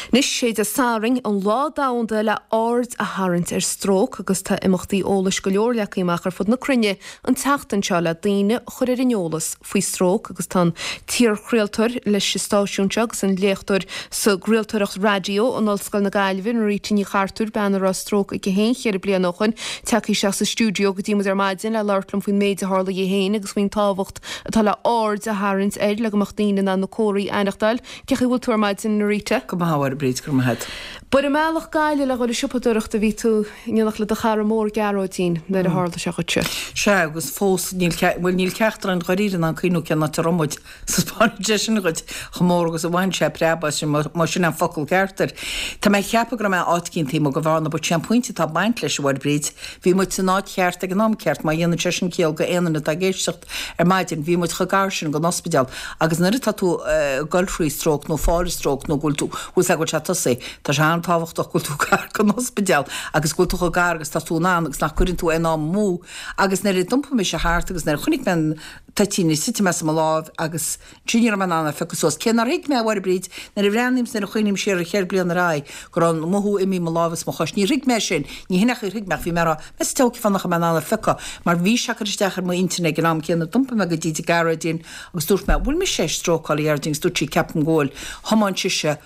Anois, sé Dé Sathairn an lá domhanda le aird a tharraingt ar stróc agus tá imeachtaí eolais go leor leagtha amach ar fud na cruinne an tseachtain seo le daoine a chur ar an eolas faoi stróc agus tá an t-iarchraoltóir leis an stáisiún seo agus an léachtóir sa gcraoltóireacht raidió in Ollscoil na Gaillimhe, Norita Ní Chartúir, bean a raibh stróc aici féin cheithre bliana ó shoin, tagtha isteach sa stiúideo go dtí muid ar maidin le labhairt liom faoin méid a tharla dhi féin agus faoin tábhacht atá le aird a tharraingt air le go mbeadh daoine in ann na comharthaí a aithneachtáil. Cén chaoi a bhfuil tú ar maidin, Norita? Go maith, a Mháire Bríd, go raibh maith agat. Ba ar an mbealach go Gaillimh le dhul ag siopadóireacht a bhí tú in éineacht le do chara mór Gearóidín nuair a tharla sé dhuitse. Sea, agus fós níl, bhuel níl ceachtar againn dháiríre in ann cuimhniú cén áit a raibh muid. Taispeánann sé sin dhuit chomh mór agus a bhain sé preab as sin, más sin an focal ceart air. Tá mé ag ceapadh go raibh mé áit eicínt taobh amuigh de Bhearna, but sé an pointe atá ag baint leis, a Mháire Bríd, bhí muid san áit cheart ag an am ceart, má dhéanann sé sin ciall go aon duine atá ag éisteacht. Ar maidin, bhí muid chomh gar sin don ospidéal agus nuair atá tú ag goil thrí stróc nó fáil stróc nó go bhfuil tú, bhfuil 's agat go bhfuil sé tosaithe, tá sé an-tábhachtach go bhfuil tú gar don ospidéal agus go bhfuil tú chomh gar agus tá tú in ann agus nach gcuireann tú aon am amú. Agus nuair a d'iompaigh mise thart agus nuair a chonaic mé an toitín ag titim as mo láimh agus ansin ní raibh mé in ann é a phiocadh suas. Cé nár thuig mé, a Mháire Bríd, nuair a bhreathnaím 's nuair a chuimhním siar ar cheithre bliana ar aghaidh, go raibh an mothú imithe i mo lámh is mo chois. Níor thuig mé sin. Ní hin é an chaoi ar thuig mé ach bhí mé ag rá, Meas tú cén fáth nach raibh mé in ann é a phiocadh, mar bhí sé ag cur isteach ar m'intinn ag an am céanna. D'iompaigh mé go dtí Gearóidín agus dúirt mé, 'Bhfuil mise ag strócáil, a Ghearóidín? Agus dúirt sí, 'Ceapaim go bhfuil. Thiomáin sise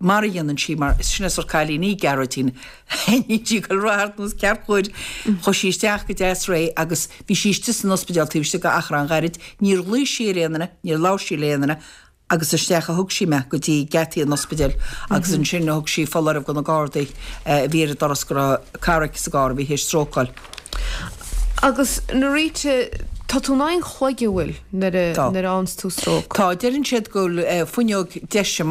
mar a dhéanann sí, mar sin é sórt cailín í Gearóidín. Níl sí ag dul thart nós cearc chóir. Chuaigh sí isteach go deas réidh agus bhí sí istigh san ospidéal taobh istigh d'achar an-ghairid. Níor ghlaoigh sí ar aon duine, níor labhair sí le aon duine agus isteach a thug sí mé go dtí geataí an ospidéil agus ansin a thug sí foláireamh do na Gardaí a bhí ar an doras go raibh cara aici sa gcarr a bhí théis strócáil. Agus Norita, tá tú in ann cloigeann, an bhfuil, nuair a nuair a fhaigheanns tú stróc? Tá, deireann siad go bhfuil fuinneog deise,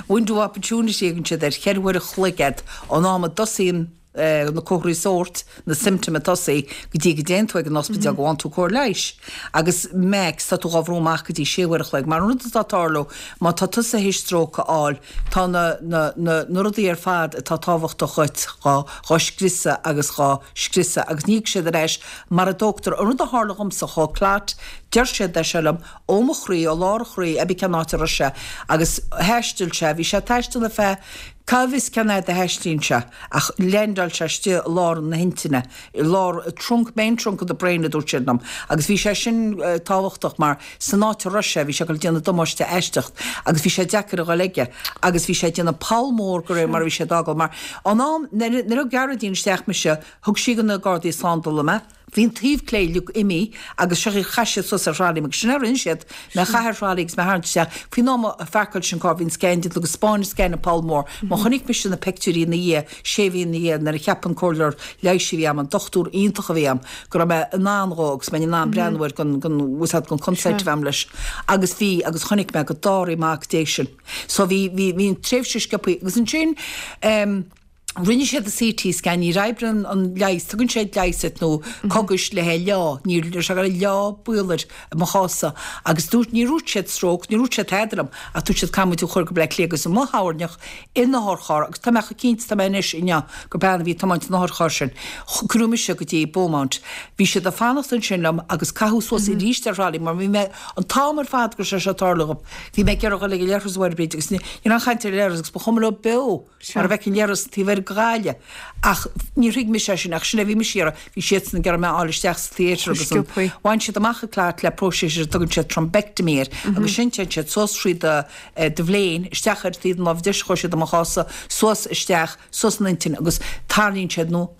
window of opportunity a thugann siad air, cheithre uair a chloig agat ón am a dtosaíonn na comharthaí sóirt, na symptoms ag tosaí, go dtí go dtéann tú ag an ospidéal go bhfaigheann tú cóir leighis. Agus max, tá tú dhá bhrú amach go dtí sé uair a chloig. Mar an rud atá ag tarlú, má tá tusa théis stróc a fháil, tá na, na, na, na rudaí ar fad atá tábhachtach dhuit dhá, dhá scriosadh agus dhá scriosadh agus ní thiocfaidh siad ar ais mar a dtógtar. An rud a tharla dhomsa, chuaigh clot, deir siad é seo liom, ó mo chroí, ó lár an chroí, cibé cén áit a raibh sé, agus thaistil sé, bhí sé ag taisteal ar feadh, Cá bhfios cén fhad a thaistlíonn sé, ach leaindeáil sé istigh i lár na hintinne, i lár trunk, main trunk of the brain a dúirt siad liom. Agus bhí sé sin tábhachtach mar san áit a raibh sé, bhí sé ag dul ag déanamh damáiste aisteach agus bhí sé deacair a dhul aige agus bhí sé ag déanamh poll mór de réir mar a bhí sé ag fágáil mar an am nuair a thug Gearóidín isteach mise, thug sí go na Gardaí Slándála mé. Bhí an taobh clé uilig imithe agus seo chaith siad suas ar thralaí mé agus sin a rinne siad, mé a chaitheamh ar thralaí agus mé a tharraingt isteach. Faoin am a pharcáil siad an carr bhí an scan déanta agus 'spáin an scan an poll mór. Má chonaic mise na peictiúirí ina dhiaidh, sé mhí ina dhiaidh, nuair a cheap an comhairleoir leighis a bhí a'm, an dochtúir iontach a bhí a'm, go raibh mé in ann dhó agus mé in ann breathnú air gan, gan, bhfuil 's a'd, gan consaeit a bheith a'm leis. Agus bhí, agus chonaic mé go dara mac Dé sin. So bhí, bhí, bhí an tréimhse sciobthaí agus ansin, em, Rinne siad an CT scan, níor oibrigh an leigheas, tugann siad leigheas duit nó cogais le haghaidh leá, ní raibh sé ag dul leá baol air i mo chás-sa agus dúirt, níor dhúirt siad stróc, níor dhúirt siad tada liom ach dúirt siad caithfidh muid tú a chur go Bleá Cliath agus i mo thoirneach in otharcharr agus tá mé chomh cinnte is tá mé anois inniu gur bean a bhí ag tiomáint an otharchairr sin, cuireadh mise go dtí Beaumont. Bhí siad ag fanacht ansin liom agus caitheadh suas arís ar thralaí mar bhí mé, an t-am ar fad go raibh sé seo ag tarlú dhom, bhí mé ag iarraidh dhul ag an leithreas a Mháire Bríd agus ní raibh aon chaint ar an leithreas agus ba chuma leo beo. Mar a bheadh an leithreas taobh thoir de Ghaillimh. Ach níor thuig mise é sin, ach sin é a bhí mise a iarraidh. Bhí siadsan ag iarraidh mé a fháil isteach sa theatre agus an, bhain siad amach an clot le próiseas a dtugann siad thrombectomy air agus sin téann siad suas thrí do, do bhléin, isteach ar taobh na láimhe deise chuaigh siad i mo chás-sa, suas isteach, suas an intinn agus tarraingíonn siad nó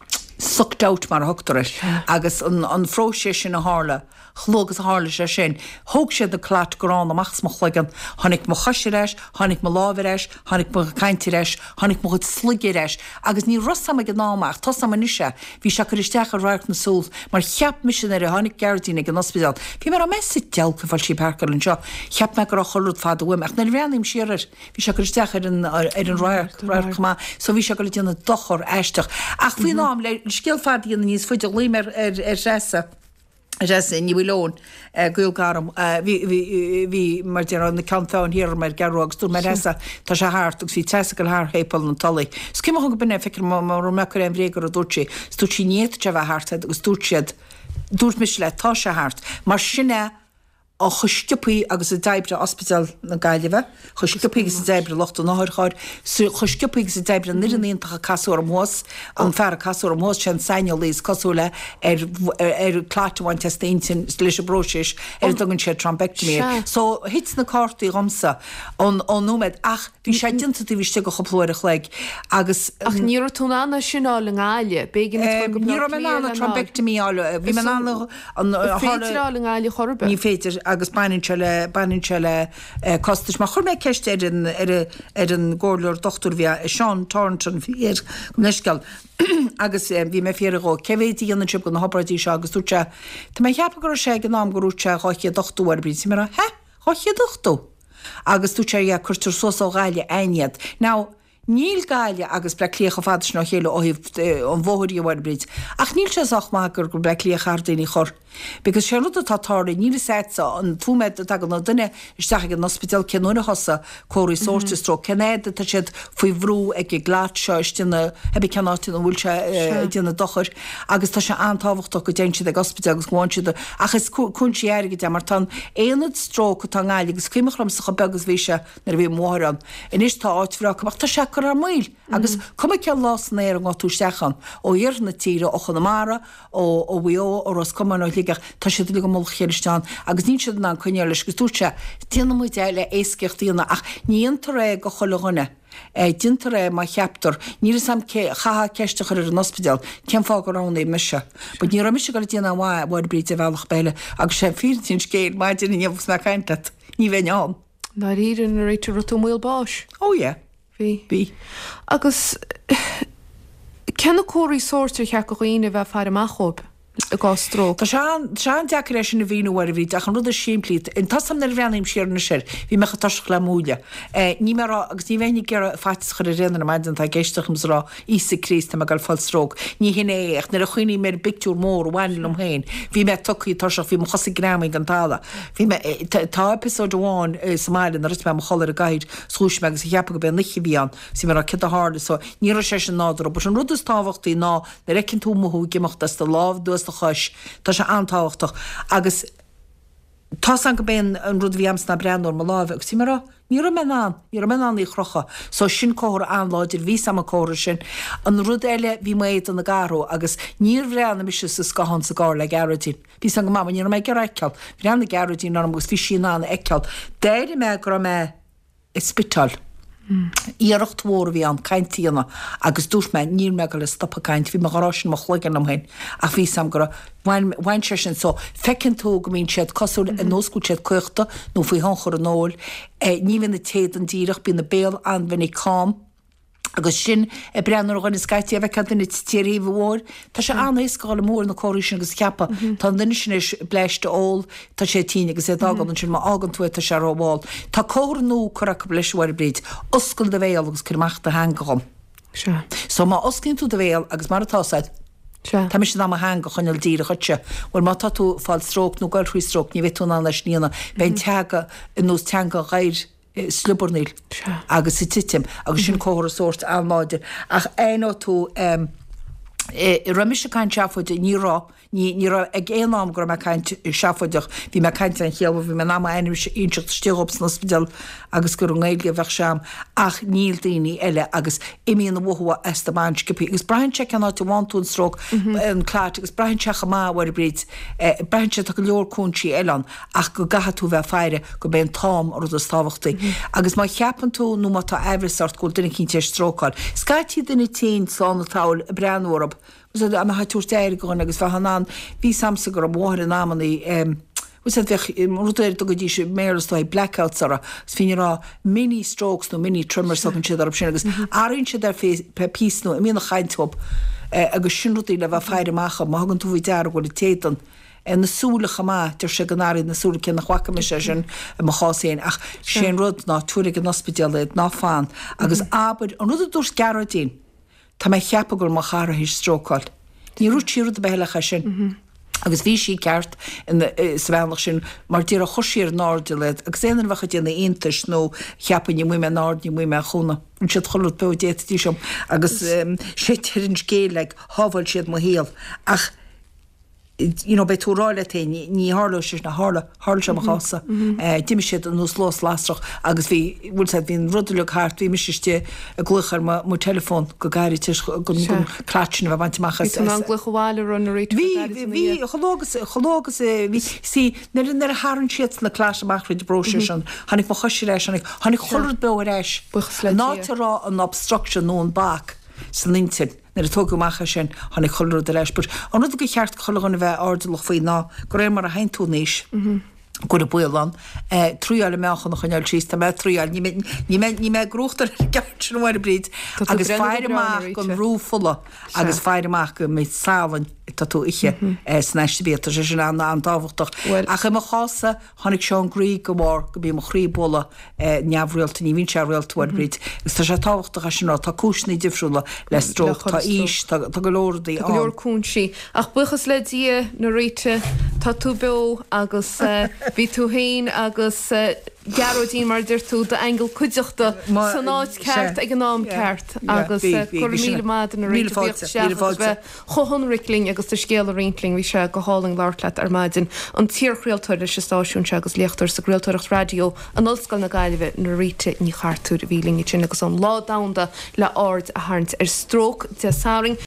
sucked out mar a thugtar air. Agus an, an phróiseas sin a tharla. Chomh luath agus a tharla sé sin, thóg siad an clot gránna amach as mo chloigeann. Tháinig mo chois ar ais, tháinig mo lámh ar ais, tháinig mo chaint ar ais, tháinig mo chuid sloige ar ais, agus ní raibh 's a'm ag an am ach tá 's a'm anois é, bhí sé ag cur isteach ar radharc na súl, mar cheap mise nuair a tháinig Gearóidín ag an ospidéal, bhí mé ag rá meas an diabhal cén fáth a bhfuil sí ag páirceáil anseo, cheap mé go raibh chuile rud fada uaim, ach nuair a bhreathnaím siar air, bhí sé ag cur isteach ar an ar an radharc, radharc chomh maith, so bhí sé ag dul ag déanamh dochar aisteach. Ach faoin am, le scéal fada a dhéanamh níos faide, ghlaoigh mé ar ar Threasa, Treasa Ní Mhaoileoin, gaol gar dom, bhí, bhí, bhí, mar déarfá, ina ceann feadhain thiar orm ar an gCeathrú Rua agus dúirt mé, Treasa, tá sé thart agus bhí Treasa ag dul thar shéipéal na Tulaí. Is cuimhin liom go binn é, feictear dom mura raibh mé ag cur aon bhréag air a dúirt sí. Is dúirt sí ní fhéadfadh sé a bheith thart agus dúirt siad, dúirt mise léi, tá sé thart. Mar sin é. Chomh sciobthaí agus a d'oibrigh Ospidéal na Gaillimhe, chomh sciobthaí agus a d'oibrigh lucht an otharchairr, chomh sciobthaí agus a d'oibrigh an fhoireann iontach a casadh orm thuas, an fear a casadh orm thuas, sé an saineolaí is cosúil é ar ar clot a bhaint as d'intinn leis an bpróiseas ar a dtugann siad thrombectomy air. So, thit na cártaí dhomsa ón nóiméad ach bhí sé déanta taobh istigh de chúpla uair a chloig agus. Ach ní raibh tú in ann é sin a fháil i nGaillimh, b'éigean duit dul go Ní raibh mé in ann an thrombectomy a fháil, bhí mé in ann an. An féidir a fháil i nGaillimh chor ar bith? Ní féidir agus baineann sé le, baineann sé le costais. Mar chuir mé ceist ar an, ar an, ar an gcomhairleoir dochtúir a bhí, Seán Thornton a bhí air, gabh mo leithscéal, agus bhí mé ag fiafraí dhó, cé mhéid a dhéanann sibh de na hobráidí seo agus dúirt sé, tá mé ag ceapadh go raibh sé ag an am go dúirt sé 280 a Mháire Bríd, bhí mé ag rá, hé? 280? Agus dúirt sé, yeah, cuirtear suas ó Ghaillimh a'inn iad. Now, Níl Gaillimh agus Bleá Cliath chomh fada sin ó chéile ó thaobh an bhóthair dhe, a Mháire Bríd, ach níl sé sách maith gur go Bleá Cliath a chaithfear daoine a chur. Because sé an rud atá tarlaithe, níl fhios a'dsa an fuiméad a dtagann an duine isteach ag an ospidéal, cén uair a thosaigh comharthaí sóirt an stróc, cén fhad atá siad faoi bhrú ag an gclot seo istigh ina, cibé cén áit ina bhfuil sé ag déanamh dochair agus tá sé an-tábhachtach go dtéann siad ag ospidéal agus go bhfaigheann siad, ach is cúinsí airgid é mar tá an aonad stróc atá i nGaillimh agus cuimhneach liomsa chomh beag is a bhí sé, Nuair a bhí mo mháthair ann. Anois tá áit bhreá acu ach tá sé curtha ar maoil agus cuma cén lá san aer a ngabhfaidh tú isteach ann, ó iarthar na tíre, ó Chonamara, ó ó Mhaigh Eo, ó Ros Comáin, ó Shligeach, tá siad uilig i mullach a chéile isteach ann agus níl siad in ann coinneáil leis agus dúirt sé, déanann muid é le éascaíocht a dhéanamh ach ní dhéantar é go chuile dhuine. Déantar é má cheaptar, níl fhios a'm cé, chaithfeá ceist a chur ar an ospidéal, cén fáth gur roghnaíodh mise. But ní raibh mise ag dul ag déanamh aon mhaith, a Mháire Bríd, ar bhealach ar bith eile agus sé fírinne an scéil maidin inniu agus mé ag caint leat, ní bheinn ann. Ndáiríre, an raibh tú i mbaol báis? Oh yeah. Bhí. Bhí. Agus cé na comharthaí sóirt ar cheart do dhaoine a bheith ag faire amach dhóibh i gcás stróc? Tá sé an, tá sé an-deacair é sin a mhíniú, a Mháire Bhríd, ach an rud is simplí, tá 'fhios a'm nuair a bhreathnaím siar anois air, bhí mé chomh tuirseach le múille. Ní mé a rá, agus ní bheinn ag iarraidh faitíos a chur ar aon duine ar maidin atá ag éisteacht liom is a rá, Íosa Críost, tá mé ag dul fáil stróc. Ní hin é, ach nuair a chuimhním ar an bpictiúr mór a bhain liom féin, bhí mé tugtha tuirseach, bhí mo chosa greamaithe den talamh. Bhí mé, tá episode amháin sa mbaile nuair a thit mé i mo chodladh ar an gcathaoir, 's dhúisigh mé agus ag ceapadh go b'é an oíche a bhí ann, 's bhí mé ag rá céard a tharla, so ní raibh sé sin nádúrtha. But an rud is tábhachtaí ná nuair a fheiceann tú mothú ag imeacht as do lámh nó as do chois, tá sé an-tábhachtach. Agus tá's a'm go b'é an rud a bhí a'msa ná breathnú ar mo láimh agus bhí mé ag rá, ní raibh mé in ann, ní raibh mé in ann í a chrochadh. So sin comhartha an-láidir, bhí 'fhios a'm an comhartha sin. An rud eile, bhí m'éadan ag athrú agus níor bhreathnaigh mise sa scáthán sa gcarr le Gearóidín. Bhí 'fhios a'm go maith, mar ní raibh mé ag iarraidh a fheiceáil. Bhreathnaigh Gearóidín orm agus bhí sí in ann a fheiceáil. D'airigh mé go raibh mé ag spiteáil. Iarracht mhór a bhí ann caint a dhéanamh agus dúirt mé, níl mé ag dul a stopadh ag caint. Bhí mé dhá rá sin i mo chloigeann liom féin ach bhí 'fhios a'm go raibh, bhain, bhain sé sin. So, feiceann tú go mbíonn siad cosúil, ar nós go bhfuil siad caochta nó faoi thionchar an óil. Ní bhíonn an t-éadan díreach, bíonn an béal an-mhinic cam. Agus sin ag breathnú ar dhuine scaití a bhfeiceá duine tite ar thaobh an bhóthair, tá sé an-éasca dhul amú ar na comharthaí sin agus a cheapadh, tá an duine sin théis bleaist a ól, tá sé tinn agus é d'fhágáil ansin, má fhágann tú é tá sé rómhall. Tá comhartha nua curtha acu leis a Mháire Bríd, oscail do bhéal agus cuir amach do theanga dhom. Sea. So má osclaíonn tú do bhéal agus mar atá said, Sea. tá mise in ann mo theanga a choinneáil díreach dhuitse. Bhuel má tá tú ag fáil stróc nó ag goil thrí stróc ní bheidh tú in ann é sin a dhéanamh. Beidh an teanga ar nós teanga gadhair sliobarnaíl agus ag titim agus sin comhartha sóirt an-láidir. Ach aithneoidh tú raibh mise ag caint seafóide, ní raibh, ní, ní raibh ag aon am go raibh mé ag caint seafóideach, bhí mé ag caint an-chiallmhar, bhí mé in ann m'ainm a inseacht istigh dhób san ospidéal agus gur i nGaeilge a bheadh sé a'm ach níl daoine eile agus imíonn an mhothú as do bhean sciobthaí agus braitheann sé cén áit a bhfaigheann tú an stróc, an clot agus braitheann sé chomh maith, a Mháire Bríd, braitheann sé tá go leor cúinsí eile ann. ach go gcaithfidh tú bheith ag faire gurb é an t-am an rud is tábhachtaí. Agus má cheapann tú nó má tá aimhreas ort go bhfuil duine eicínt théis strócáil, scaití duine tinn slán an tsamhail ag breathnú orthu, bhfuil a fhios ag tabhairt aire do dhuine agus bheith in ann, bhí 'fhios a'msa go raibh mo mháthair in amannaí, bhfuil a fhios bheadh rud ar a dtugaidís i mBéarla is dóigh blackouts orthu, is bhínn ag rá mini strokes nó mini tremors thugann siad orthu sin agus athraíonn siad ar feadh píosa nó imíonn an chaint uathu agus sin rudaí le bheith ag faire amach má thugann tú faoi deara go bhfuil an t-éadan na súile chomh maith, deir sé go n-athraíonn na súile, cé nach bhfaca mise é sin i mo chás féin, ach sé an rud ná tabhair ag an ospidéal iad, ná fan, agus abair, an rud a dúirt Gearóidín, tá mé a cheapadh go bhfuil mo chara théis strócáil. Ní dúirt sí rud ar bith eile ach é sin. Agus bhí sí ceart sa bhealach sin, mar déarfá chuir sí ar an airdeall iad, agus aon duine a bheadh ag déanamh iontais nó cheapfainn ní bhfaighidh mé in aird, ní bhfaighidh mé aon chúnamh. Rinne siad chuile rud beo a d'fhéadfaidís dom, agus sé deireadh an scéil, like, shábháil siad mo shaol. Ach. you know, beidh tú ag rá leat féin, ní tharlóidh sé sin, tharla, tharla sé i mo chás-sa. D'imigh siad ar nós lus lasrach agus bhí, bhfuil 's a'd, bhí an rud uilig thart, bhí mise istigh ag glaoch ar mo, mo teileafón go gairid tar éis don, don clot sin a bheith bainte amach as. Bhí tú in ann glaoch abhaile a raibh na réitigh go gairid ina dhiaidh. Bhí, bhí, chomh luath agus, chomh luath agus a bhí, see, nuair, nuair a tharraing siad na clot amach thríd an bpróiseas sin, tháinig mo chois ar ais, tháinig, tháinig chuile rud beo ar ais. Buíochas le An Dia. áit a raibh an obstruction nó an bac san intinn, Nuair a tógadh amach é sin, tháinig chuile rud ar ais. But an rud gur cheart chuile dhuine a bheith airdeallach faoi ná de réir mar a théann tú in aois, go bhfuil baol ann, triáil an meáchan a choinneáil síos, tá mé ag triáil, ní mé, ní mé, ní mé ag gnóthachtáil ar an gceann sin, a Mháire Bríd, Tá tú agus breathnú go faire breá amach Norita. don bhrú fola agus faire amach go mbeidh salainn atá tú a ithe san aiste bia, tá sé sin an-tábhachtach. Bhuel. Ach i mo chás-sa, Tháinig sé ón gcroí de bharr go mbíonn mo chroí ag bualadh neamhrialta, ní bhíonn sé rialta, a Mháire Bríd. Agus tá sé tábhachtach é sin a rá, tá cúiseanna difriúla le stróc, tá aois, tá go leor rudaí Tá go leor ann. cúinsí. Ach buíochas le Dia, Norita, tá tú beo agus bhí tú féin agus Gearóidín, mar a deir tú, d'aingeal cuideachta san áit ceart ag an am ceart agus go raibh míle maith agat Norita, theacht isteach agus bheith chomh hionraic linn agus do scéal a roinnt linn. Bhí sé go hálainn labhairt leat ar maidin. An t-iarchraoltóir leis an stáisiún seo agus léachtóir sa gcraoltóireacht raidió in Ollscoil na Gaillimhe, Norita Ní Chartúir a bhí linn ansin agus an Lá Domhanda le aird a tharraingt ar stróc Dé Sathairn.